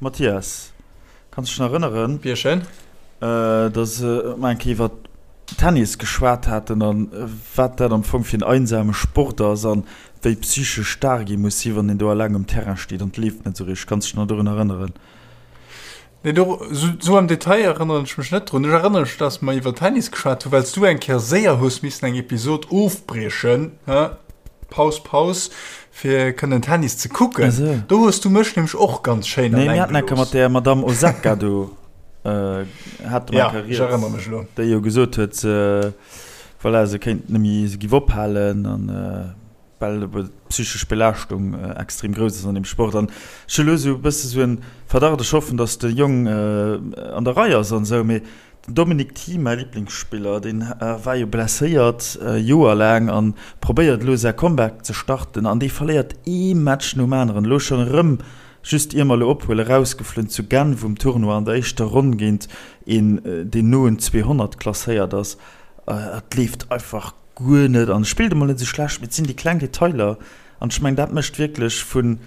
Mathias, kanns dech nach erënneren, Bierchen. dass mer eng Kéier iwwer Tennis geschwat haten an wat dat am Fong fir en einsame Sport ass an wéi psychesch staark ee muss sinn, wann een do eleng um Terrain steet an et leeft net esou richteg. Kanns dech nach dorun erënneren? Nee, do, sou am Detail erënneren ech mech net drun. Ech erënnere mech, dass mer iwwer Tennis geschwat hunn, well s du eng Kéier séier hues missen eng Episod ofbriechen, hä, Paus, Paus, fir kënnen Tennis ze kucken. Ah sou. Do hues du mech nämlech och ganz schéin Nee, mir alleng haten eng Kéier gelooss. mat där Madamm Osaka do, hate mer Ja, eng Kéier ech rieds, erënnere mech elo. déi jo gesot huet, se, voilà, se kéint net méi, se giff ophalen an. Well ebe d'psychesch Belaaschtung extrem grouss ass an deem Sport. An ech hu lo esou e bësse sou en Verdacht, ech hoffen, datt de Jong an der Rei ass an esou, mee den Dominic Thiem, mäi Liblingsspiller, deen war jo blesséiert Joer laang an probéiert elo säi Comeback ze starten an dee verléiert ee Match nom aneren. Elo schonn erëm, just ier mer elo ophuelen, erausgeflunn zu Genf um Tournoi an der éischter Ronn géint een, deen no un 200 klasséiert ass. Et leeft einfach Guer net an spillt emol net esou schlecht, mee et sinn déi kleng Detailer an ech mengen dat mécht wierklech vun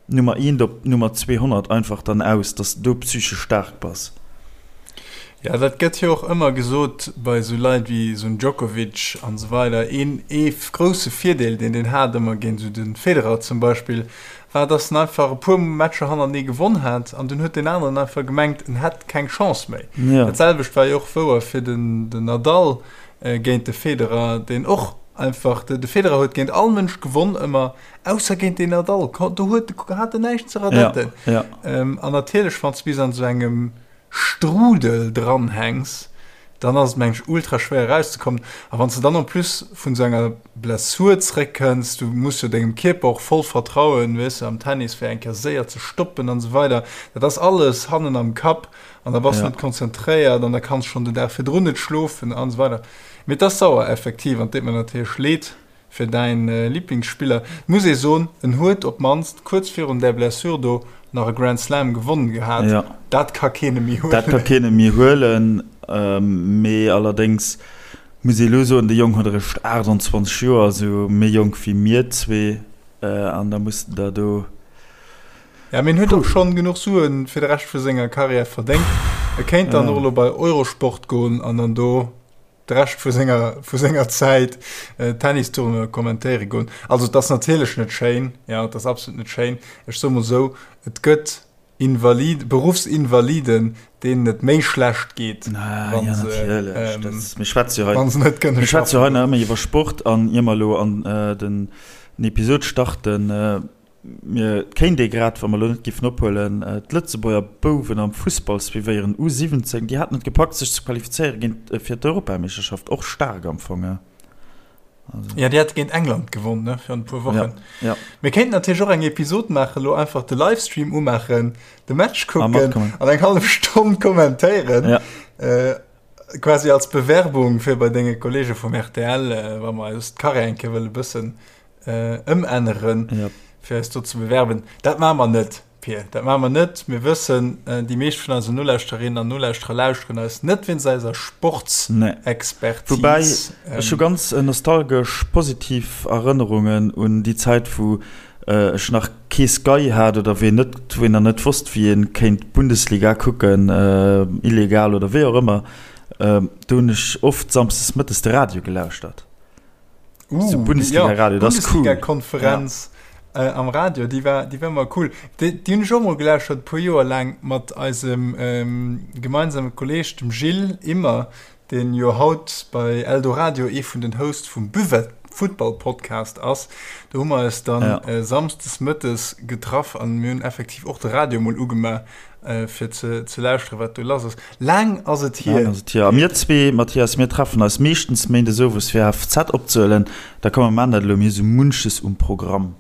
Nummer eent op Nummer 200 einfach dann aus, dass de do psychesch staark bass. Jo, dat gëtt jo och ëmmer gesot bei esou Leit wéi esou en Djokovic an esou weider. Een ee grousse Virdeel deen deen hat ëmmer géint esou de Federer zum Beispill war, dass en einfach e puer Matcher hannertenee gewonn hat an dunn huet deen aneren einfach gemengt en hätt keng Chance méi. Dat selwecht war jo och wouer fir den Nadal. Géint de Federer, deen och einfach, de Federer huet géint all Mënsch gewonn ëmmer, ausser géint den Nadal. Do huet, hat en näischt ze radetten. Ja, ja. An natierlech, wann s du bis an esou engem Strudel dranhänks, dann ass et, meng ech, ultra schwéier erauszekommen. A wann s de dann en plus vun esou enger Blessur zréckkënns, du muss jo dengem Kierper och voll vertrauen, weess de, am Tennis, fir eng Kéier séier ze stoppen an esou weider, dat ass alles hannen am Kapp. An da bass du Ja. net konzentréiert an da kanns schonn den Dag virdrun net schlofen an esou weider. Mee et ass sauer effektiv an et deet mer natierlech leed fir däin Liblingsspiller. Et muss ee soen, en huet op d'mannst kuerz virun där Blessure do nach e Grand Slam gewonnen gehat. Ja. Dat ka keen em méi Dat ka huelen. keen em méi huelen. Mee allerdéngs muss ee elo soen, de Jong huet eréischt 28 Joer, also méi jonk wéi mir zwee. An da muss en der do. Ja, mee en huet och schonn genuch Suen fir de Rescht vu senger Karriär verdéngt. E kéint dann och elo bei Eurosport goen an dann do de Rescht vu senger, vu senger Zäit Tennistournoie kommentéiere goen. Also et ass natierlech net schéin, ja, et ass absolut net schéin. Ech soe mol esou, et gëtt Invalid, Beruffsinvaliden, deenen et méi schlecht geet, wa se, Mir schwätze jo hei, wa se net kënne mir schwätze jo hei schaffen. nach ëmmer iwwer Sport an ier mer elo an den Episod starten, Mir kéint ee grad, wa mer elo net giffen ophuelen, d'Lëtzebuerger Bouwen am Fussball suivéieren, U 17, déi haten et gepackt sech ze qualifizéiere géint fir d'Europameeschterschaft, och staark am Fong, he? Also. Ja, déi hate géint England gewonn, ne, virun e puer Wochen. Ja, ja. Mir kéinten natierlech och eng Episod maachen, elo einfach de Livestream umaachen, de Match kucken an eng hallef Stonn kommentéieren. Ja. Äh, quasi als Bewerbung fir bei denge Kollege vum RTL, äh, wa mer eis d'Karriär eng Kéier wëlle bëssen ëmänneren, yep. fir eis do ze bewerben. Dat maache mer net, Pir. Dat maache mer net. Mir wëssen, déi meescht vun eisen Nolauschterinnen an Nolauschterer lauschteren eis net wéinst eiser Sportsexpertise. Nee. Woubäi, ech hu ganz nostalgesch positiv Erënnerungen un déi Zäit, wou ech nach kee Sky hat oder wou een net, wou een nach net wosst, wéi ee kéint d'Bundesliga kucken, illegal oder wéi och ëmmer. Do hunn ech oft samsdes mëttes de Radio gelauschtert. Uh, Bundesliga Radio, ja, das ist cool. Bundesliga-Konferenz ja. äh, am Radio, déi war, déi war mal cool. Déi, déi hunn ech och mol gelauschtert, e puer Joer laang mat eisem ähm, gemeinsame Kolleg, dem Gilles Immer, deen jo haut bei Eldoradio ee vun den Hosts vum Buvette Football Podcast ass. Do hu mer eis dann ja. äh, samsdes mëttes getraff an mir hunn effektiv och de Radio mol ugemaach. Fir ze, ze lauschteren, wat do lass ass. Laang ass et hier. Laang ass et hier. A mir zwee, Mathias, mir treffen eis meeschtens méindes owes fir HFZ opzehuelen. Da komm, mer maachen dat elo, mir hu sou munches um Programm.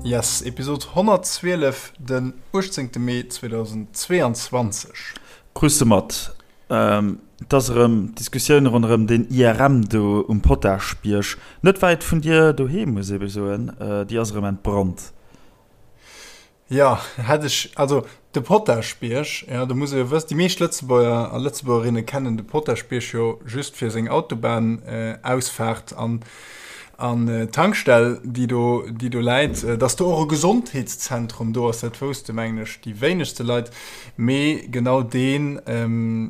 Yes, Episod 112. Den 18 Mee 2022. Krus de mat, et ass erëm d'Diskussioun ronderëm deen IRM do um Jo, hätt ech, also de Potaschbierg, jo, do muss ee jo wëssen, déi meescht Lëtzebuerger a Lëtzebuergerinne kennen de Potaschbierg jo just fir seng Autobahnausfaart an an d'Tankstell, déi do, déi do läit. Dass do och e Gesondheetszentrum do ass, dat wousste mengen ech déi wéinegste Leit, mee genau dee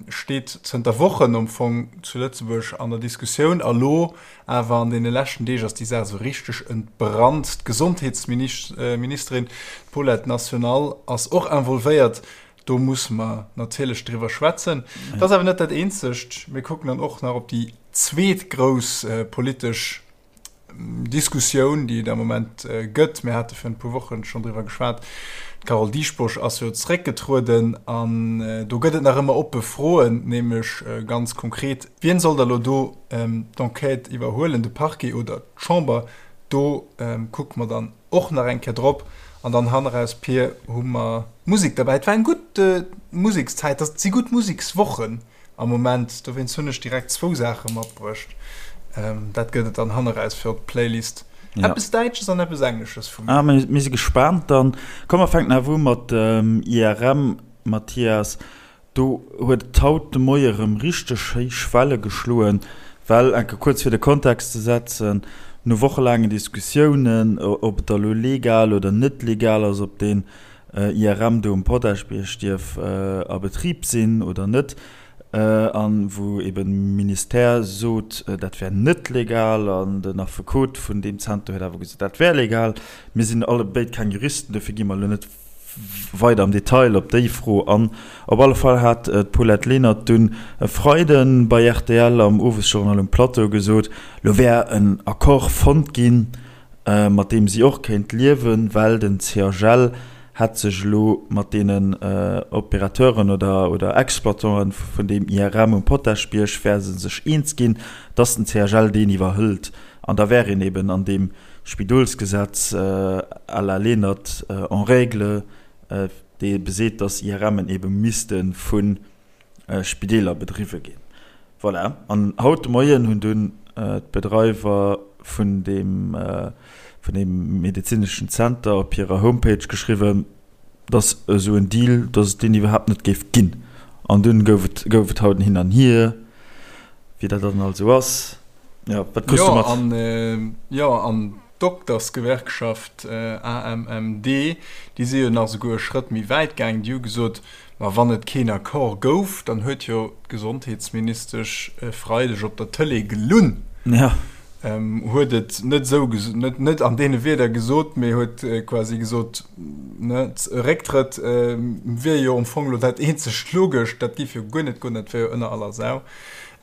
steet zënter Wochen am Fong zu Lëtzebuerg an der Diskussioun a lo Awer an deene leschten Deeg ass déi Saach esou richteg entbrannt. D'Gesondheetsministerin, d'Paulette National, ass och involvéiert. Do musse mer natierlech driwwer schwätzen. Dat ass awer net dat Eenzegt. Mir kucken dann och nach op déi zweet grouss politesch Diskussioun, déi et am Moment gëtt. Mir hate virun e puer Woche schonn driwwer geschwat. D'Carole Dieschbourg ass jo zeréckgetrueden an do gëtt et nach ëmmer oppe Froen, nämlech ganz konkret, Wien soll da lo do d'Enquête iwwerhuelen, de Parquet oder d'Chamber? Do kucke mer dann och nach eng Kéier drop. An dann hanneraus, Pir, hu mer Musek derbäi. Et war eng gutt Musekszäit, et si gutt Musekswochen am Moment, dowéinst hunn ech direkt zwou Saache matbruecht. Dat gëtt et dann hanneraus fir op d'Playlist. Eppes Däitsches an eppes Englesches vu mir. Ah, mir si gespaant dann. Komm, mer fänken awer u mat dem IRM, Mathias. Do huet et haut de Moie rëm richteg héich Welle geschloen, well, enke kuerz fir de Kontext ze setzen, no wochelaangen Diskussiounen, ob et da lo legal oder net legal ass, ob deen IRM do um Potaschbierg dierf a Betrib sinn oder net, a wou eben de Ministère sot, dat wär net legal, an den Affekot vun deem Zenter huet awer gesot, dat wär legal. Mir sinn allebéid keng Juristen, dofir gi mer elo net weider am Detail op déi Fro an. Op alle Fall hat d'Paulette Lenert dunn e Freide bei rtl am Owesjournal um Plateau gesot, lo wär en Accord fonnt ginn, mat deem si och kéint liewen, well den CHL hätt sech elo mat deenen Opérateuren oder Exploitanten vun deem IRM um Potaschbierg wäre se sech eens ginn, datt den CHL deen iwwerhëlt. An da wär een eben an deem Spidolsgesetz à la Lenert en règle, dee beseet, dass IRMen ebe misste vu Spideeler bedriwwe ginn. Voilà. An haut de Moien hunn dunn d'Bedreiwer vun deem, vun deem medezineschen Zenter op hirer Homepage geschriwwen, dass esou en Deal, dass et deen iwwerhaapt net géif ginn. An dunn gouf et, gouf et haut en Hin an Hier, wéi dat dann alt esou ass. Ja, wat kriss du mat? An, jo, an d'Doktersgewerkschaft AMMD, déi si jo nach esouguer e Schrëtt méi wäit gaangen. Déi hu gesot, ma wann et keen Accord gouf, dann huet jo d'Gesondheetsministesch e Freideg op der Tëlee gelunn. Ja. Huet et net esou, net, net an deene Wierder gesot, mee huet quasi gesot, ne, e Récktrëtt wier jo am Fong elo dat eenzegt Logescht, dat géif jo guer net goen, dat wär jo ënner aller Sau.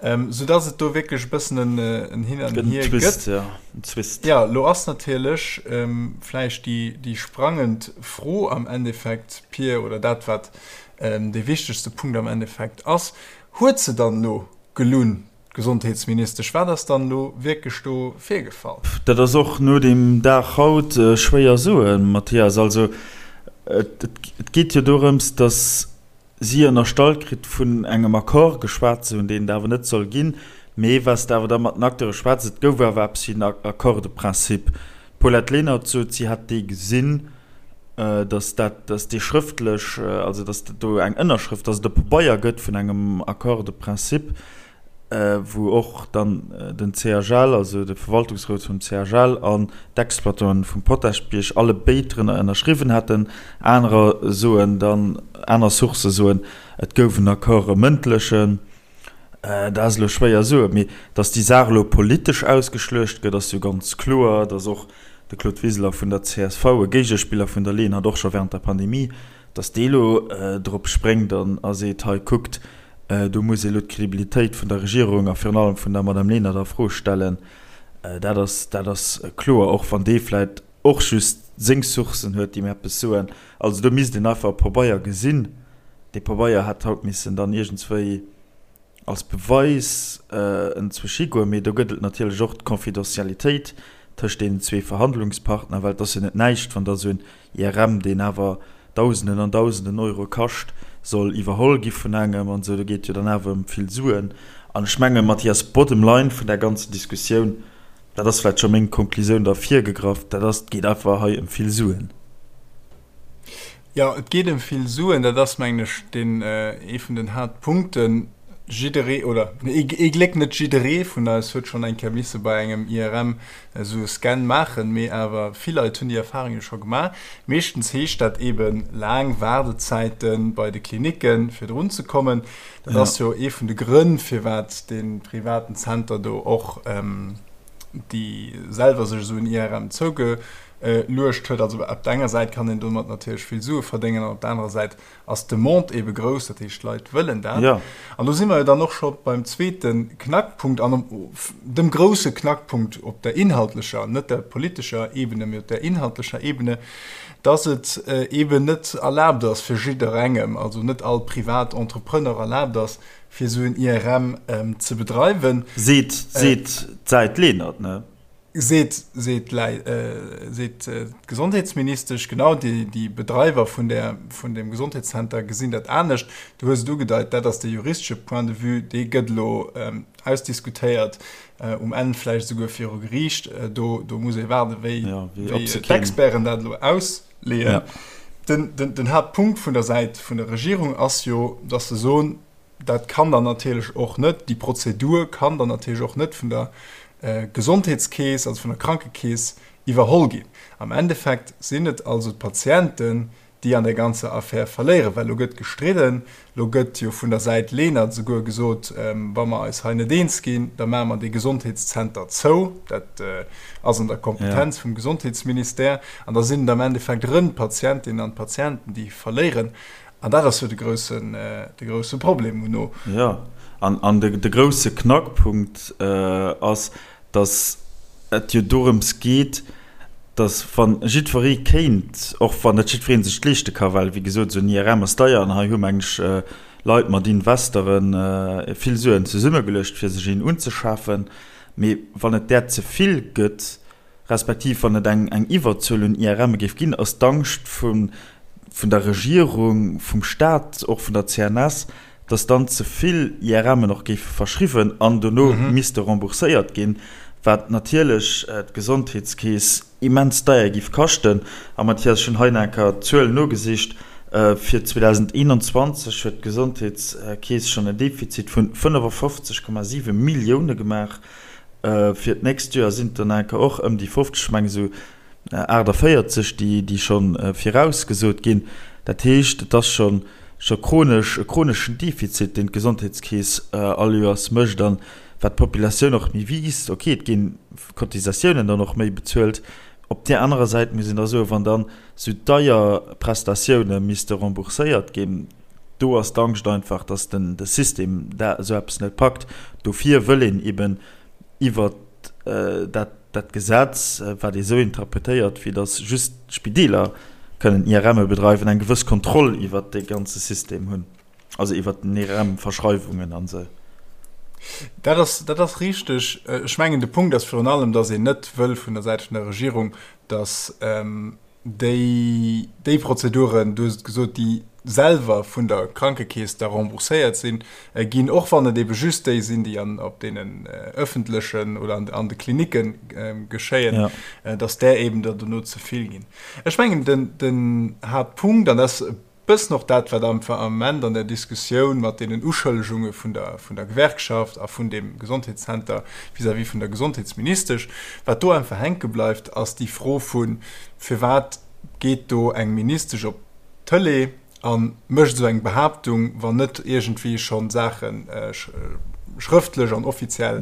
Ähm, sou dass et do wierklech e bëssen en, en Hin an Hier gëtt. Ja, en Twist. Ja, lo ass natierlech ähm, vläicht déi, déi sprangend Fro am Endeffekt, Pir, oder dat, wat ähm, dee wichtegste Punkt am Endeffekt ass, Huet se dann elo gelunn, d'Gesondheetsministesch? Wat ass dann elo wierklech do virgefall? Dat ass och no deem Dag haut schwéier soen, Mathias. Also, et, et geet jo dorëms, dass si ënnerstallt kritt, vun engem Accord geschwat ze hunn, deen et awer net soll ginn, mee wat s de awer da mat den Acteure schwätz, et gouf awer eppes wéi en Accord de principe. D'Paulette Lenert sot, si hätt dee gesinn, datt dat, datt dee schrëftlech, also datt do eng Ënnerschrëft, datt et e Pabeier gëtt vun engem Accord de principe, wou och dann den CHL, also de Verwaltungsrot vum CHL an d'Exploitanten vum Potaschbierg alle béid drënner ënnerschriwwen hätten. Anerer soen dann, aner Sourcë soen, et gouf en Accord, e mëndlechen. Dat ass elo schwéier soen, mee datt déi Saach elo politesch ausgeschluecht gëtt, ass jo ganz kloer. Datt och de Claude Wiseler vun der csv, e Géigespiller vun der Lenert, och scho während der Pandemie, Datt dee elo drop spréngt an a seet, hei kuckt, do muss ee elo d'Credibilitéit vun der Regierung a virun allem vun der Madame Lenert a Fro stellen, dat ass, dat ass kloer, och wann dee vläicht och just seng Sourcen huet, déi em eppes soen. Also do misst een einfach e Pabeier gesinn. Dee Pabeier hätt haut missen dann iergendswéi als Beweis enzwousch higoen, mee do gëtt et natierlech och d'Confidentialitéit tëscht deenen zwee Verhandlungspartner, well et ass jo net näischt, wann da esou en IRM, deen awer Dausenden an Dausenden Euro kascht, soll iwwerholl gi vun engem an esou, do geet jo dann awer ëm vill Suen. An ech menge Mathias, bottom line vun där ganzen Diskussioun, dat ass vläicht scho meng Konklusioun da virgegraff, dat ass, et geet einfach hei ëm vill Suen. Jo, et geet ëm vill Suen. Dat ass, mengen ech, deen ee vun den Haaptpunkten. Jidderee, oder ee Gléck net jidderee vun eis huet schonn eng Kéier misse bei engem IRM esou e Scan maachen, mee awer vill Leit hunn déi Erfahrung jo scho gemaach. Meeschtens heescht dat eebe laang Waardezäite bei de Klinicken, fir drun ze kommen. Dat ass jo ee vun de Grënn, firwat dee privaten Zenter do och déi selwer sech esou en IRM zouge Luecht huet. Also op der enger Säit kann een domat natierlech vill Sue verdéngen an op der anerer Säit ass d'Demande eebe grouss, dat heescht d'Leit wëllen dat. Jo. An do si mer jo dann och scho beim zweete Knackpunkt an dem grousse Knackpunkt op der inhaltlecher, net der politescher Ebene, mee op der inhaltlecher Ebene, dass et eeben net erlaabt ass fir jidderengem, also net all privat Entrepreneur erlaabt ass, fir esou en IRM ze bedreiwen. Seet, seet d'Säit Lenert, ne? Seet, seet seet d'Gesondheetsministesch. Genau, déi, déi Bedreiwer vun där, vun deem Gesondheetszenter gesinn dat anescht. Du hues et ugedeit, dat ass de juristesche Point de vue, dee gëtt elo ausdiskutéiert, um Enn vläicht esouguer viru Geriicht. Do, do muss ee waarden, wéi, wéi d'Experten dat elo ausleeën. Den, den, den Haaptpunkt vun der Säit vun der Regierung ass jo, datt se soen, Dat kann dann natierlech och net, déi Prozedur kann dann natierlech och net vun der Gesondheetskeess, also vun der Krankekeess iwwerholl ginn. Am Endeffekt sinn et also d'Patienten, déi an där ganzer Affär verléieren, well elo gëtt gestridden, elo gëtt jo vun der Säit Lenert esouguer gesot, wa mer eis hei net eens ginn, da maache mer dee Gesondheetszenter zou. Dat ass an der Kompetenz vum Gesondheetsministère. An da sinn et am Endeffekt erëm d'Patientinnen an d'Patienten, déi verléieren. An dat ass jo de groussen, de grousse Problem muno. Jo, an, an de, de grousse Knackpunkt ass, datt et jo dorëms geet, datt wa jiddweree kéint, och wann net jiddweree sech et leeschte ka, well wéi gesot esou en IRM ass deier an hei hu meng ech Leit mat Investere vill Suen zesummegeluecht fir sech een unzeschafen, mee wann et där ze vill gëtt, respektiv wann et eng eng Iwwerzuel un IRMe géif ginn, ass d'Angscht vu vun der Regierung, vum Staat, och vun der CNS, datt dann ze vill IRMen och géife verschriwwen an dono misste rembourséiert ginn, wat natierlech d'Gesondheetskeess immens deier géif kaschten. A Mathias, ech hunn hei nach eng Kéier d'Zuel nogesicht, Fir 2021 huet d'Gesondheetskeess schonn en Defizit vun 55,7 Millioune gemaach. Fir d'nächst Joer sinn et der nach och ëm déi 50, ech mengen esou 48, déi scho virausgesot ginn. Dat heescht, et ass scho scho chronesch, e chroneschen Defizit, deen d'Gesondheetskeess all Joers mécht. An wat d'Populatioun och méi wiisst, okay, et gi Cotisatiounen dann och méi bezuelt. Op där anerer Säit muss een da soen, wann dann esou deier Prestatioune misste rembourséiert ginn, do ass d'Angscht einfach, dass den de System dat esou eppes net packt. Dofir wëll een eben iwwert dat dat Gesetz, wat ee sou interpretéiert, wéi dass just d'Spideeler kënnen IRMe bedreiwen, eng gewëss Kontroll iwwert dee ganze System hunn, also iwwert den IRM-Verschreiwungen an esou. Dat ass, dat ass richteg. Ech mengen, de Punkt ass virun allem, dass een net wëll vun der Säit vun der Regierung, dass déi, déi Prozeduren, du hues et gesot, déi selwer vun der Krankekeess da rembourséiert sinn, ginn, och wann et ebe just déi sinn, déi an, op deenen öffentlechen oder an, an de Klinicke geschéien, ja. dass där eben der dono ze vill ginn. Ech mengen, den, den Haaptpunkt, an dat ass e bëssen och dat, wat am Ament an der Diskussioun mat deenen Uschëllegunge vun der, vun der Gewerkschaft a vun deem Gesondheetszenter vis-à-vis vun der Gesondheetsministesch, wat do einfach hänke bleift, ass déi Fro vu firwat geet do eng Ministesch op d'Tëlee a mécht esou eng Behaaptung, wann net iergendwéi scho Saache schrëftlech an offiziell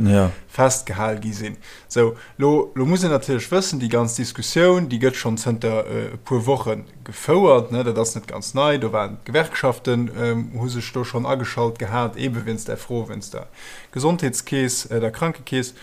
festgehal gi sinn. Sou, lo, lo muss een natierlech wëssen, déi ganz Diskussioun, déi gëtt schonn zënter e puer Woche gefouert, ne, dat ass net ganz nei, do waren d'Gewerkschaften, hu sech do schonn ageschalt gehat, eebe wéinst där Fro, wéinst der Gesondheetskeess, der Krankekeess.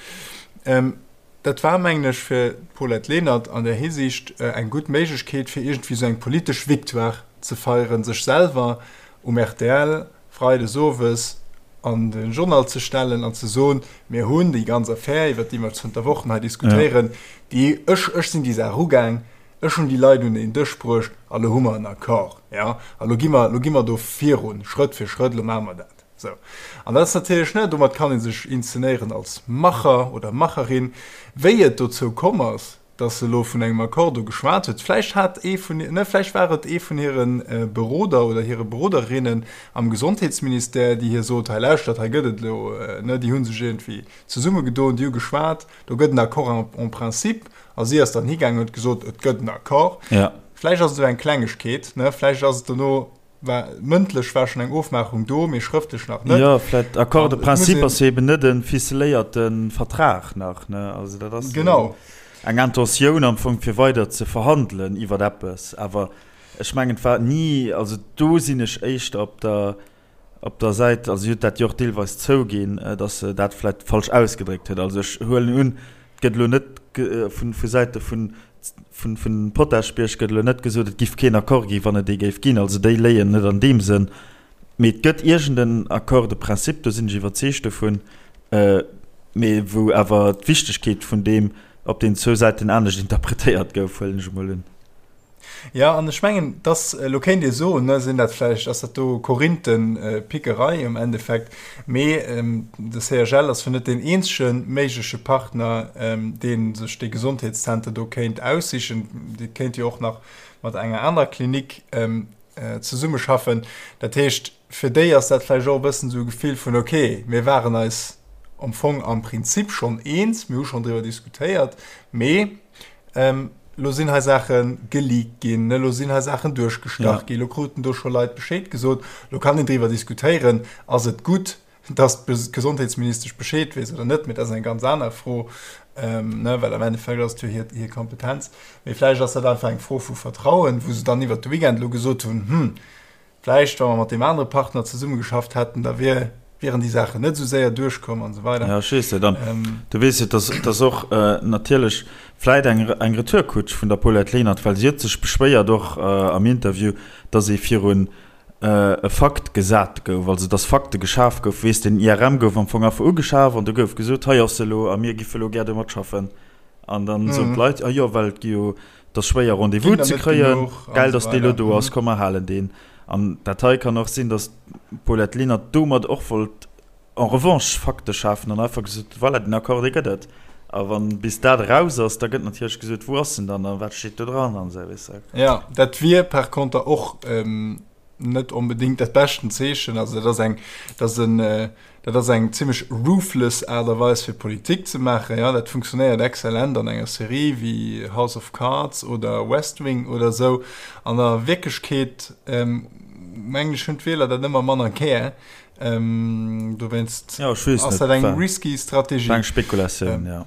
Dat war, mengen ech, fir d'Paulette Lenert an där Hisiicht eng gutt Méiglechkeet, fir iergendwéi esou eng politesch Victoire ze feieren, sech selwer um rtl freides owes an de Journal ze stellen an ze soen, Mir hunn déi ganz Affär, iwwert déi mer zënter Wochen hei diskutéieren, déi, ech, ech sinn déi Saach ugaang, Ech hunn déi Leit un een Dësch bruecht a lo hu mer en Accord, jo, a lo gi mer, lo gi mer do virun, Schrëtt fir Schrëtt, lo maache mer dat. Sou. An dat ass natierlech, ne, domat kann ee sech inszenéieren als Macher oder Macherin. Wéi et dozou komm ass, Dass se elo vun engem Accord do geschwat huet. Vläicht hat ee vun, ne, vläicht war et ee vun hire Beroder oder hire Beroderinnen am Gesondheetsministère, déi hir sot, hei lauschtert, hei gëtt et elo, ne, déi hu sech iergendwéi zesummegedoen, déi hu geschwat, do gëtt en Accord en principe. A si ass dann higaangen an huet gesot, et gëtt en Accord. Vläicht ass et esou eng Klengegkeet, ne, vläicht ass et dono, War, mëndlech war schonn eng Ofmaachung do, mee schrëftlech nach net. Jo, vläicht Accord de principe ass jo eben net e ficeléierte Vertrag nach, ne? Also dat ass genau eng Intentioun am Fong, fir weider ze verhandelen iwwer eppes. Awer ech mengen, et war ni, also do sinn ech éischter op der, op der Säit, also si huet dat jo och deelweis zouginn, datt se dat vläicht falsch ausgedréckt huet. Also ech huelen un, et gëtt elo net vu Säite vun Vun Potaschbierg gëtt elo net gesot, et giff keen Accord ginn, wann et ee géif ginn. Also déi léien net an deem Sënn. Mee et gëtt iergend en Accord de principe, do sinn ech iwwerzeegt dovun, mee wou awer d'Wichtegkeet vun deem op den zwou Säiten anescht interpretéiert gouf, huelen ech emol un. Jo, an ech mengen, dass, elo kéint ee soen, ne, sinn dat vläicht, ass dat do Korinthenpickerei um Endeffekt, mee de CHL ass jo net deen eenzege méigleche Partner, dee sech dee Gesondheetszenter do kéint aussichen. Dee kéint jo och nach mat enger anerer Klinik zesummeschaffen. Dat heescht, fir déi ass dat vläicht och e bëssen esou e Gefill vun, okay, mir waren eis am Fong am Prinzip schonn eens, mir hu schonn driwwer diskutéiert, mee Elo sinn hei Saache geleakt ginn, elo sinn hei Saachen duerchgestach ginn, elo kruten do scho Leit Bescheed gesot. Elo kann een driwwer diskutéieren, ass et gutt, datt d'Gesondheetsministesch Bescheed weess oder net, mee dat ass eng ganz aner Fro, well am Endeffekt ass et jo hir Kompetenz. Mee vläicht ass dat einfach eng Fro vu Vertrauen, wou se dann iwwert de Weekend elo gesot hunn, Hm, Vläicht, wa mer mat deem anere Partner zesummegeschafft hätten, da wier, wieren déi Saachen net esou séier duerchkomm an esou weider. Jo, ech weess net. An du weess jo, dass, dass och natierlech vläicht eng, eng Retourkutsch vun der Paulette Lenert, well si huet sech beschwéiert och am Interview, dass ee virun e Fakt gesat gouf, also dass Fakte geschaf goufen. Weess, den IRM gouf am Fong einfach ugeschaf an du gouf gesot, hei ass e elo a mir giffe elo gär domat schaffen. An dann soen d'Leit, ah jo, well et gi jo Et ass schwéier Rendez-vous ze kréien, gäil datt dee lo do ass, komm mer halen deen. An dat hei kann och sinn, datt d'Paulette Lenert domat och wollt en revanche Fakte schafen an einfach gesot huet, voilà, den Accord dee gëtt et. A wann bis dat eraus ass, da gëtt natierlech gesot, wou ass en dann a wat steet do dran an esou, weess de. Jo, dat wier par conter och net onbedéngt dat beschten Zeechen. Also dat ass eng, dat ass en, dat ass eng zimmlech ruthless Aart a Weis fir Politik ze maachen. Jo, dat funktionéiert exzellent an enger Serie wéi House of Cards oder West Wing oder esou. An der Wierklechkeet, mengen ech, hunn d'Wieler dat ëmmer manner gär. Dowéinst ass dat eng risky Strategie. War eng Spekulatioun, jo.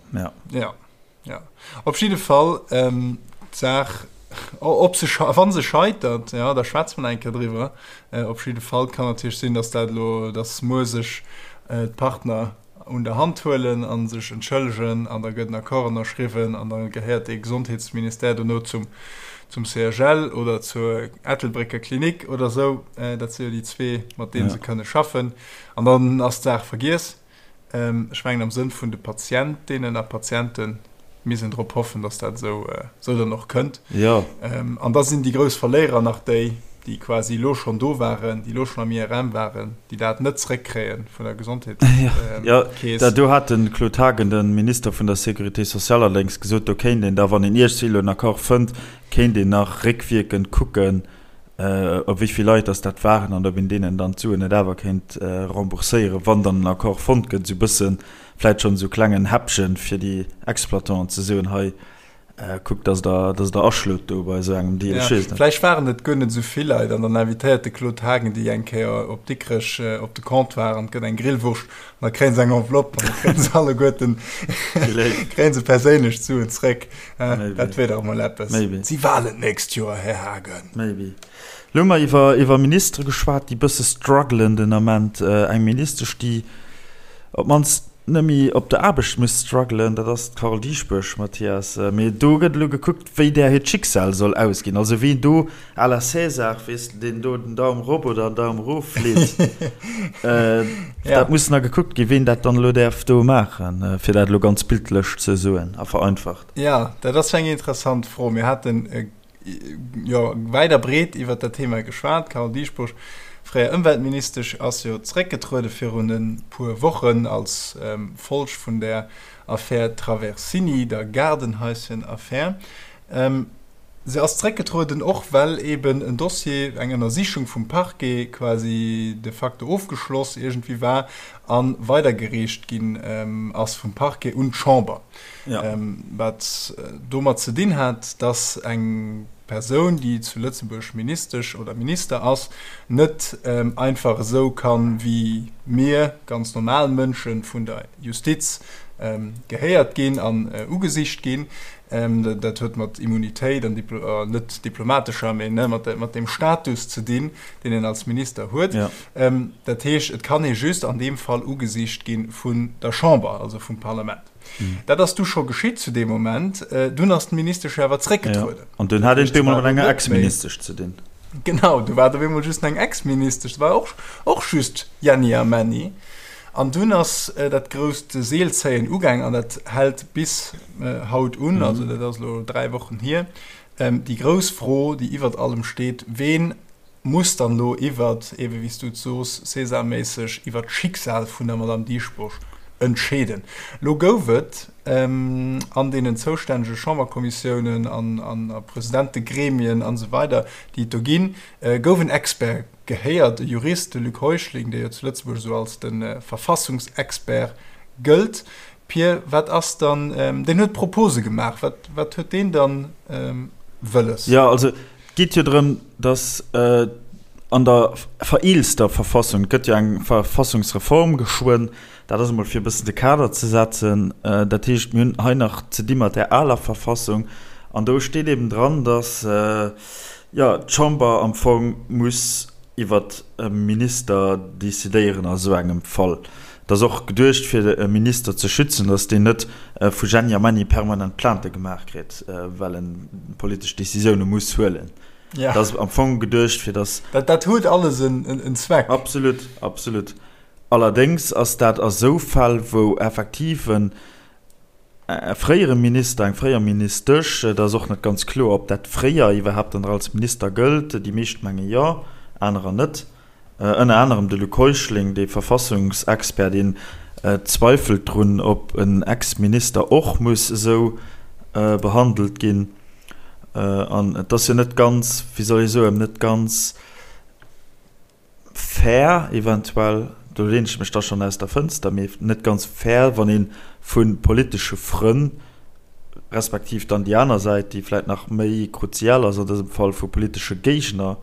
Jo. Ja, op jidde Fall d'Saach, ob se, wa se scheitert, ja, da schwätze mer nach eng Kéier driwwer. Op jidde Fall kann natierlech sinn, datt dat elo, datt muer sech d'Partner un der Hand huelen a sech entschëllegen an da gëtt en Accord ënnerschriwwen an da gehéiert dee Gesondheetsministère dono zum, zum CHL oder zur Ettelbrécker Klinik oder esou. Dat si jo déi zwee, mat deene se kënne schaffen. An dann ass d'Saach vergiess. Ech mengen am Sënn vun de Patientinnen a Patiente misst een drop hoffen, datt dat esou dann och kënnt. Jo. An da sinn déi grouss Verléierer nach déi, déi quasi elo schonn do waren, déi elo schonn am IRM waren, déi dat net zréckkréie vun der Gesondheetskeess. Jo, do hat de Claude Haagen, de Minister vun der Sécurité sociale, allerdéngs gesot, do kéint een da, wann een iergendwéi elo en Accord fënnt, kéint een nach réckwierkend kucken, op wéi vill Leit dass dat waren an ob een deenen dann d'Suen net awer kéint rembourséieren, wann dann en Accord fonnt gëtt, esou e bësse vläit schonn esou klengen Häppchen, fir déi Exploitanten ze soen, hei kuckt, dass Der, dass Der aschlot do bei esou engem Deal. Ech weess et net. Vläicht waren et guer net esou vill Leit an dann invitéiert de Claude Haagen déi eng Kéier op Dikrech op de Comptoir an et gëtt eng Grillwurscht an da kréie se eng Enveloppe an da kréie se alleguerten, kréie se perséinlech d'Suen zréck. Dat wier dach emol eppes. Maybe. Et si Wahlen d'nächst Joer, Här Haagen. Maybe. Elo hu mer iwwer, iwwer Ministere geschwat, déi bësse struggelen den Ament. Eng Ministesch, déi op d'mannst net méi op der Aarbecht muss struggelen, dat ass d'Carole Dieschbourg, Mathias. Mee do gëtt elo gekuckt, wéi där hiert Schicksal soll ausginn. Also wien do à la César, weess de, deen do den Daum rop oder den Daum erof leet, dat muss nach gekuckt ginn, wien dat dann elo däerf do maachen, fir dat elo ganz bildlech ze soen a vereinfacht. Jo, dat ass eng interessant Fro. Mir haten jo wäit a breet iwwert dat Thema geschwat. D'Carole Dieschbourg. Fréier Ëmweltministesch ass jo zeréckgetruede virun e puer Wochen als Folg vun der Affär Traversini, der Gaardenhaischen-Affär. Se ass zeréckgetrueden, och well eben en Dossier, eng Ënnersichung vum Parquet quasi de facto ofgeschloss iergendwéi war a weidergereecht ginn ass vum Parquet un d'Chamber. Wat domat ze dinn hat, datt eng Persoun, déi zu Lëtzebuerg Ministesch oder Minister ass, net einfach esou kann, wéi mir ganz normal Mënschen, vun der Justiz gehéiert ginn an ugesicht ginn. Dat huet mat Immunitéit an net diplomatescher, mee mat deem Status ze dinn, deen een als Minister huet. Dat heescht, et kann ee just an deem Fall ugesicht gi vun der Chamber, also vum Parlament. Dat ass du scho geschitt zu deem Moment. Dunn ass d'Ministesch jo awer zréckgetrueden. An dunn hat een et op eemol mat enger Ex-Ministesch ze dinn. Genau, du war et op eemol just eng Ex-Ministesch. Et war och, och just Jenni a Männi. An dunn ass dat grousst Seelzéien ugaang an dat hält bis haut un, also dat ass elo 3 Wochen hier. Déi grouss Fro, déi iwwert allem steet, Ween muss dann elo iwwert, ebe wéi s du et soos, César-méisseg, iwwert d'Schicksal vun der Madame Dieschbourg entscheeden? Elo gouf et an deenen zoustännege Chamberkommissiounen an a Presidentegremien an esou weider, déi et do ginn, gouf en Expert gehéiert, e Jurist, de Luc Heuschling, dee jo zu Lëtzebuerg esou als de Verfassungsexpert gëllt. Pir, wat ass dann, deen huet Propose gemaach, wat, wat huet deen dann wëlles? Jo, also et geet jo drëm, datt an der vereelster Verfassung, et gëtt jo eng Verfassungsreform geschwënn, dat ass emol fir e bëssen de Kader ze setzen, dat heescht, mir hunn hei nach ze di mat där aler Verfassung an do steet eben dran, datt, Jo, d'Chamber am Fong muss iwwert e Minister decidéieren a sou engem Fall. Et ass och geduecht, fir e Minister ze schützen, datt deen net vu Jenni a Menni permanent Plainte gemaach kritt, well en politesch Decisioune muss huelen. Et ass am Fong geduecht, fir datt. Dat huet alles en Zweck. Absolut, absolut. Allerdéngs ass dat a sou Fäll, wou effektiv en E fréiere Minister, eng fréier Ministesch, et ass och net ganz kloer, ob dat fréier iwwerhaapt dann nach als Minister gëllt, déi meescht menge jo, anerer net, ënner anerem de Luc Heuschling, dee Verfassungsexpert, deen zweifelt drun, ob en Ex-Minister och muss esou behandelt ginn. An et ass jo net ganz, wéi soll ee soen, net ganz, Fair eventuell, do lehnen ech mech da schonn aus der Fënster, mee net ganz fair, wann ee vu politesche Frënn, respektiv dann déi aner Säit, déi vläit nach méi kruzial ass an dësem Fall, vu politesche Géigner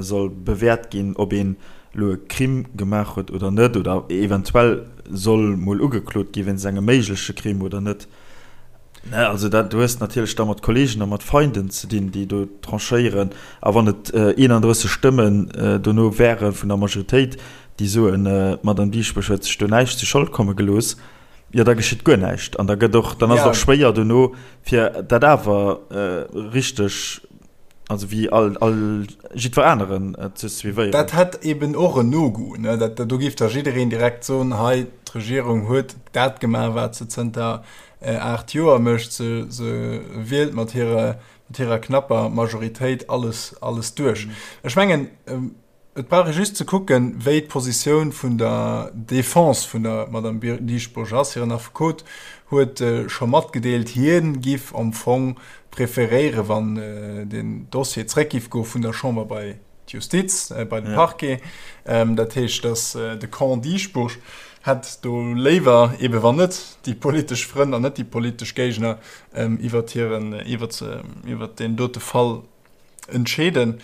soll bewäert ginn, ob een elo e Crime gemaach huet oder net, oder eventuell soll mol ugeklot gi wéinst engem méigleche Crime oder net. Ne, also dat, du hues natierlech da mat Kollegen a mat Feinden ze dinn, déi do tranchéieren. A wann et 31 Stëmmen dono wäre vun der Majoritéit, déi soen, d'Madame Dieschbourg huet sech do näischt zu Schold komme gelooss, jo da geschitt guer näischt. An da gëtt och, dann ass et och schwéier dono, fir dat awer richteg, also wéi all, all jiddwer aneren ze suivéieren. Dat hätt eben och en No-Goût, ne? Dat, do géif da jiddereen direkt soen, hei, d'Regierung huet dat gemaach, wat se zënter 8 Joer mécht, se, se wielt mat hirer, mat hirer knapper Majoritéit alles, alles duerch. Ech mengen, et brauch ee just ze kucken, wéi d'Positioun vun der Defense vun der Madame Dieschbourg ass. Hiren Affekot huet scho matgedeelt, hie giff am Fong preferéieren, wann den Dossier zréck giff goe vun der Chamber bei d'Justiz, bei de Parquet. Dat heescht, datt de Camp Dieschbourg hätt do léiwer, eebe wann net déi politesch Frënn an net déi politesch Géigner iwwert hiren, iwwert, iwwert deen dote Fall entscheeden.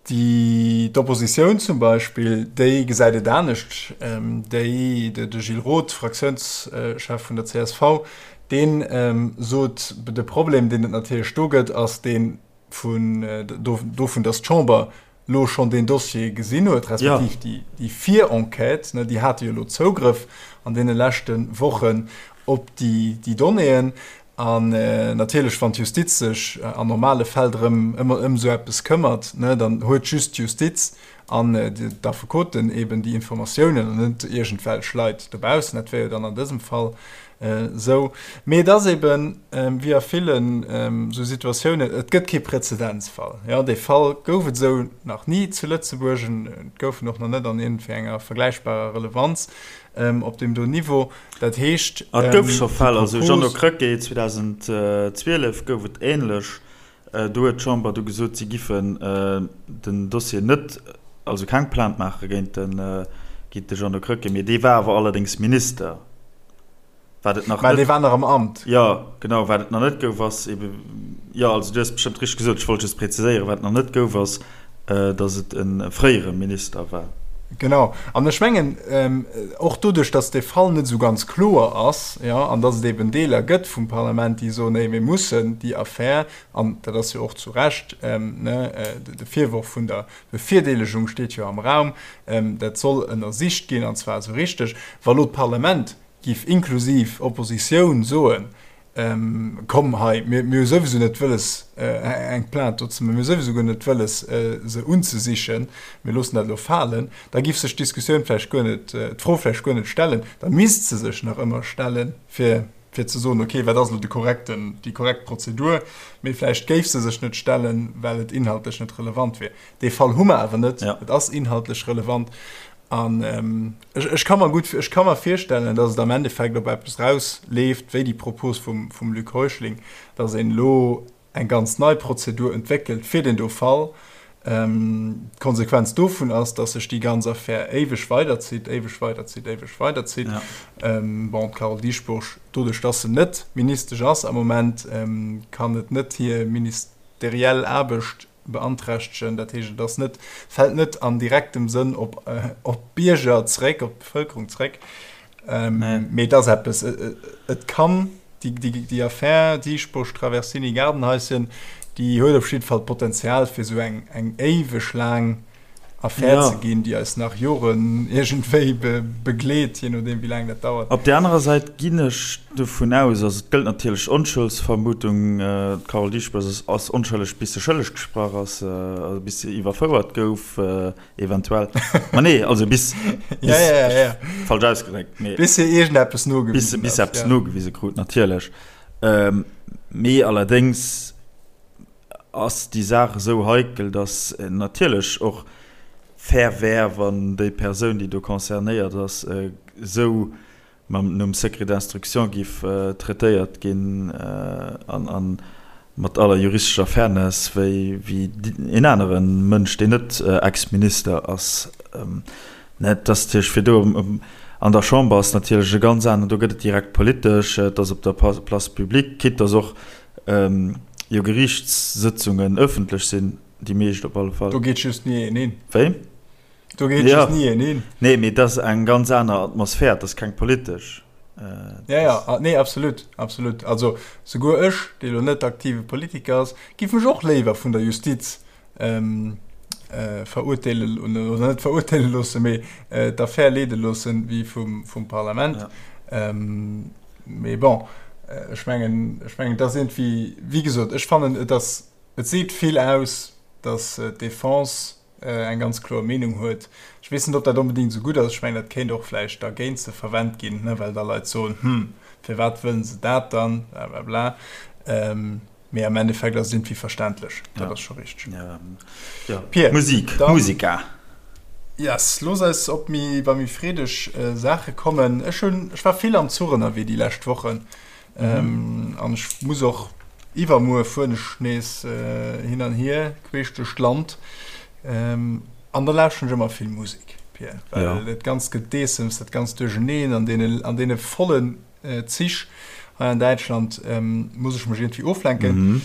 Déi, d'Oppositioun zum Beispill, déi gesäit et anescht. Déi, de Gilles Roth, Fraktiounschef vun der csv, dee sot, de Problem, deen et natierlech do gëtt, ass deen, vun dovun, datt d'Chamber lo schonn deen Dossier gesinn huet, respektiv déi, déi Virenquête, ne, déi hate jo elo Zougrëff an deene leschte Wochen op déi, déi Donnéeën. An natierlech, wann d'Justiz sech an normale Fäll drëm, ëm, ëm esou eppes këmmert, ne, dann huet just d'Justiz an d'Affekoten eben déi Informatiounen an net iergendwelch Leit dobaussen. Dat wär jo dann an dësem Fall. Esou. Mee et ass eben, wéi a villen esou Situatiounen, et gëtt kee Präzedenzfall. Jo, dee Fall gouf et esou nach ni zu Lëtzebuerg, et gouf en och nach net an iergendwéi enger vergläichbarer Relevanz op deem do Niveau. Dat heescht, Et gouf scho Fäll, also Jeannot Krecké, 2012 gouf et änlech, do huet d'Chamber du gesot, si giffen den Dossier net, also keng Plainte maache géint de Jeannot Krecké, mee dee war awer allerdéngs Minister. Wat et nach net. Mä dee war nach am Amt. Jo, genau. Wat et nach net gouf, ass ebe, jo, also du hues bestëmmt richteg gesot, ech wollt just präziséieren, wat nach net gouf, ass, datt et e fréiere Minister war. Genau. An ech mengen, och doduerch, datt dee Fall net esou ganz kloer ass, jo, an datt et eben Deeler gëtt vum Parlament, déi soen, nee, mir mussen déi Affär, an dat ass jo och zu Recht, ne, de Virworf vun der Bevirdeelegung steet jo am Raum, dat soll ënnersicht ginn, an zwar esou richteg. Wa lo d'Parlament giff inklusiv Oppositioun soen, komm hei, mir hu souwisou net wëlles eng Plainte do ze maachen, mir hu souwisou guer net wëlles se unzesichen, mir loossen dat elo falen, da giff sech d'Diskussioun vläicht guer net, d'Fro vläicht guer net stellen, da misst se sech nach ëmmer stellen, fir fir ze soen, okay, wat ass elo de korrekten, déi korrekt Prozedur, mee vläicht géif se sech net stellen, well et inhaltlech net relevant wier. Dee Fall hu mer awer net, et ass inhaltlech relevant an ech, ech ka mer gutt, ech ka mer virstellen, datt et am Endeffekt op eppes rausleeft, wéi déi Propos vum, vum Luc Heuschling, datt een elo eng ganz nei Prozedur entwéckelt fir deen do Fall. D'Konsequenz dovun ass, datt sech déi ganz Affär éiweg weiderzitt, éiweg weiderzitt, éiweg weiderzitt. Bon, d'Carole Dieschbourg, doduerch datt se net Ministesch ass am Moment, kann et net hir ministeriell Aarbecht beanträchtegen. Dat heescht, et ass net, fält net an direktem Sënn op d'Bierger zréck, op d'Bevëlkerung zréck. Mee et ass eppes, et kann déi Affär Dieschbourg, Traversini, Gaardenhaischen, déi huet op jidde Fall d'Potenzial fir esou eng éiweg laang Affär ze ginn, déi eis nach Joren iergendwéi begleet, jee nodeem wéi laang dat dauert. Op där anerer Säit ginn ech dovun aus, also et gëllt natierlech Onschuldsvermutung, d'Carole Dieschbourg ass onschëlleg bis se schëlleg gesprach ass, also bis se iwwerfouert gouf. Eventuell. Ma nee, also bis, bis ja, ja, ja, ja. falsch ausgedréckt. Mee, bis se iergendeppes nogewisen bis, bis eppes ja. nogewise krut, natierlech. Ähm, mee allerdéngs ass déi Saach esou heikel, dass natierlech och fair wär, wann déi Persoun, déi do concernéiert ass, esou mam nom Secret d'instruction giff traitéiert ginn an mat aller juristescher Fairness wéi een anere Mënsch, deen net Ex-Minister ass. Et ass natierlech fir do an der Chamber ass natierlech e ganz aneren, do gëtt et direkt politesch, et ass op der Place publique, quitte dass och jo Geriichtssëtzungen ëffentlech sinn, déi meescht op alle Fall. Do geet just ni een hin. Wéi? Do geet ja. ni een hin. Nee, mee dat ass eng ganz aner Atmosphär, dat ass keng politesch. Äh, ja, ja, ah, nee, absolut, absolut. Also souguer ech, dee lo net aktive Politiker ass, giff mech och léiwer vun der Justiz ähm, äh, verurteelen oder net verurteele loossen, mee äh, d'Affär leede loossen, wéi vum, vum Parlament. Ja. Ähm, mee bon, äh, ech mengen, ech mengen, dat ass irgendwie, wéi gesot, ech fannen, et ass, et seet vill aus, dass äh, d'Defense eng ganz kloer Meenung huet. Ech weess net, ob dat onbedéngt esou gutt ass. Ech mengen, dat kéint och vläicht da géint se verwennt ginn, ne, well da Leit soen, Hm, firwat wëllen se dat dann? Blablabla. Mee am Endeffekt ass et iergendwéi verständlech. Dat ass scho richteg. Ja, Pir, Musik, dann, Musica. Yes, looss eis op méi, bei méi freedeg Saache kommen. Ech hunn, ech war vill am Zuch ënnerwee déi lescht Wochen. Mhm. An ech muss och iwwermuer fueren ech nees hin an hier queesch duerch d'Land. An da lauschteren ech ëmmer vill Musek, Pir, well ja. dat ganzt Gedeessems, dat ganzt Duercheneen an deene, an deene vollen Zich hei an Däitschland muss ech mech iergendwéi oflenken. Mhm.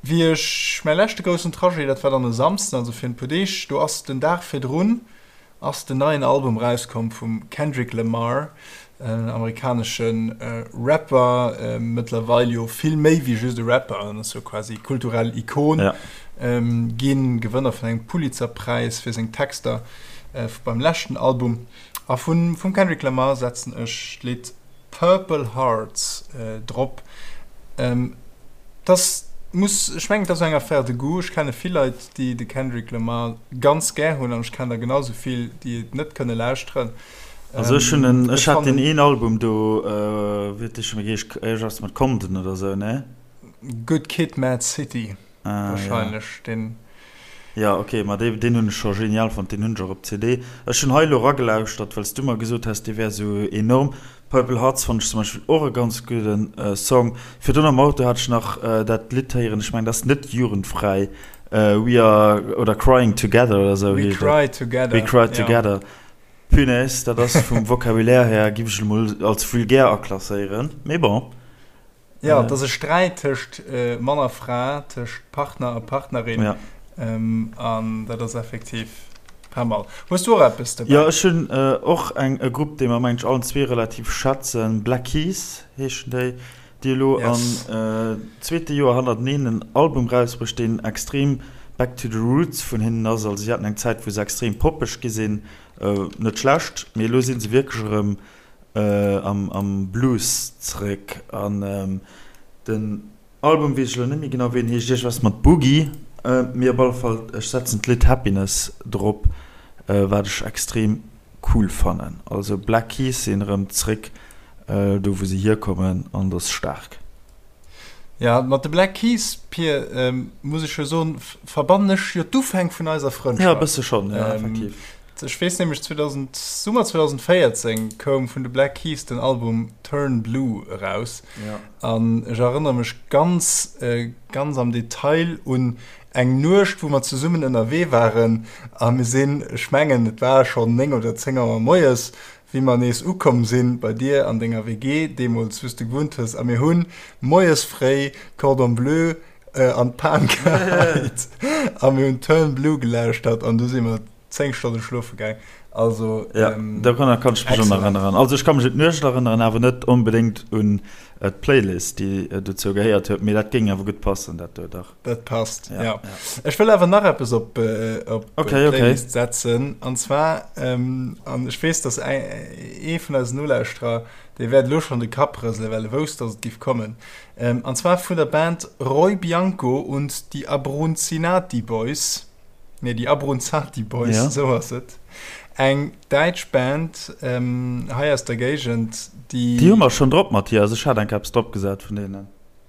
Wéi ech mäi leschte groussen Trajet, dat war dann e Samsden, also virun e puer Deeg, do ass den Dag virdrun ass den neien Album rauskomm vum Kendrick Lamar, en amerikanesche Rapper, mëttlerweil jo vill méi wéi just e Rapper, en ass jo quasi kulturell Ikon ginn, Gewënner vun engem Pulitzer-Präis fir seng Texter beim leschten Album. A vum Kendrick Lamar setzen ech d'Lidd Purple Hearts drop. Dass muss, ech mengen et ass eng Affaire de goût. Ech kenne vill Leit déi de Kendrick Lamar ganz gär hunn an ech kennen der genau sou vill déi et net kënne lauschteren. Also ech hunn en, ech hat deen een Album do, wéi huet dee scho méi geheescht, iergendwas mat Compton oder sou, ne? Good Kid, Mad City wahrscheinlech, deen. Jo, ok, ma dee, deen hunn ech scho genial fonnt, deen hunn ech och op CD. Ech hunn hei elo eragelauschtert, well s du mer gesot has, dee wär sou enorm. Purple Hearts fonnt ech zum Beispill och e ganz gudden Song. Virdrun am Auto hat ech nach dat Lidd héieren, ech mengen, dat ass net jugendfräi, We are, oder Crying Together oder sou heescht et. We Cry Together. We Cry Together. Punaise, dat ass vum Vocabulaire här, giff ech emol als vulgär aklasséieren, mee bon. Jo, et ass e Sträit tëscht Mann a Fra, tëscht Partner a Partnerin. An dat ass effektiv pas mal. Hues du och eppes dobäi? Jo, ech hunn och eng, e Grupp, dee mer, mengen ech, allen zwee relativ schätzen. Black Keys heeschen déi, déi elo am zweete Joer hannerteneen en Album rausbruecht, deen extrem back to the roots vun hinnen ass. Also si haten eng Zäit, wou se extrem poppeg gi sinn, net schlecht, mee elo si se wierklech erëm am Blues zeréck an den Album weess ech elo net méi genau wéi en heescht, iergendwas mat Boogie, mee op alle Fall ech setzen d'Lidd Happiness drop, wat ech extrem cool fannen. Also Black Keys sinn erëm zeréck do wou se hierkommen an et ass staark. Ja, mat de Black Keys, Pir, muss ech jo soen, verbannen ech jo d'Ufäng vun eiser Frëndschaft. Ja, e bësse schonn, ja, effektiv. Ech weess nämlech, 2000, Summer 2014 koum vun de Black Keys den Album Turn Blue eraus. Ja. An ech erënnere mech ganz, ganz am Detail un eng Nuecht, wou mer zesummen ënnerwee waren a mir sinn, ech mengen, et war schonn 9 oder 10 Auer moies, wéi mer nees ukomm sinn bei dir an denger WG, deemools wou s de gewunnt hues, a mir hunn moies fréi Cordon Bleu an d'Pan geheit a mir hunn Turn Blue gelauschtert an du si mer 10 Stonne schlofe gaang. Also ja, dorunner kann ech mech och nach erënneren. Also ech ka mech un d'Nuecht erënneren, awer net onbedéngt un d'Playlist, déi dozou gehéiert huet, mee dat géing awer gutt passen, dat do, dach. Dat passt, ja. ja. Ech wëll awer nach eppes op, äh, op okay, Playlist okay. setzen. An zwar, ähm, an ech weess, dass ee vun eisen Nolauschterer, dee wäert elo schonn de Kapp rëselen, well e wousst, dass et giff kommen. Ähm, an zwar vun der Band Roy Bianco und die Abrunzinati Boys. Nee, die Abruzzati Boys, ja. so ass et. Eng däitsch Band ähm, hei aus der Géigend, déi. Déi hu mer schonn drop, Mathias. Ech hat eng Kéier eppes drop gesat vun deenen.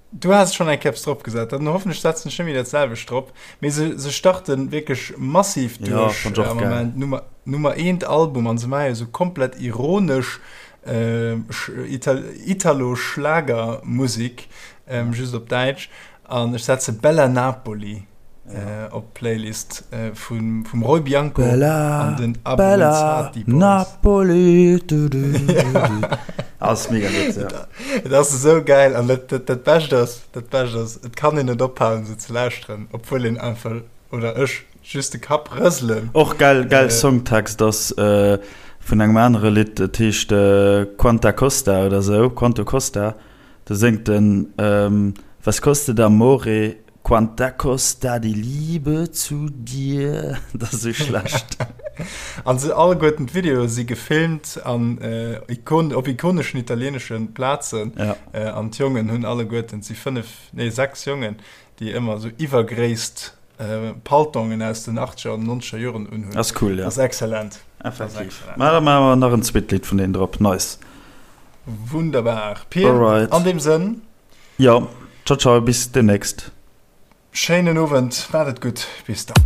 Du has schonn eng Kéier drop gesat, dann hoffentlech setzen ech net méi dat selwecht drop. Mee se, se starten wierklech massiv duerch ja, am Moment. Nummer, Nummer eent Album an se maache jo sou komplett ironesch äh, Ital Italo-Schlagermusik, ähm, just op Däitsch. An ech setze Bella Napoli op d'Playlist vum vum Roy Bianco an den Bella Boys. Napoli du, du, du, du. Ass mega gutt, ja. Et ass esou gäil an dat, dat, dat Bescht ass, dat Bescht ass, et kann een net ophalen se ze lauschteren, obwuel een einfach, oder ech, just de Kapp rëselen. Och gäil, gäil Songtext ass vun engem anere Lidd, et heescht Quanta Costa oder esou, Quanto Costa. Do séngt en, Was kostet amore, quanta costa die Liebe zu dir. Dat ass esou schlecht. An se alleguerten d'Videoe si gefilmt an op ikoneschen italieenesche Plazen. An d'Jongen hunn alleguerten, et si 5, nee 6 Jongen, déi ëmmer esou iwwergréisst Paltongen aus den achtzeger an nonzeger Joren unhunn. Ass cool, jo. Ass exzellent. Effektiv. Mä da maache mer nach en zweet Lidd vun deenen drop. Nice. Wunderbar. Pir, Alright. an deem Sënn. Jo, ciao ciao, bis demnächst. Schéinen Owend, maacht et gutt, bis dann.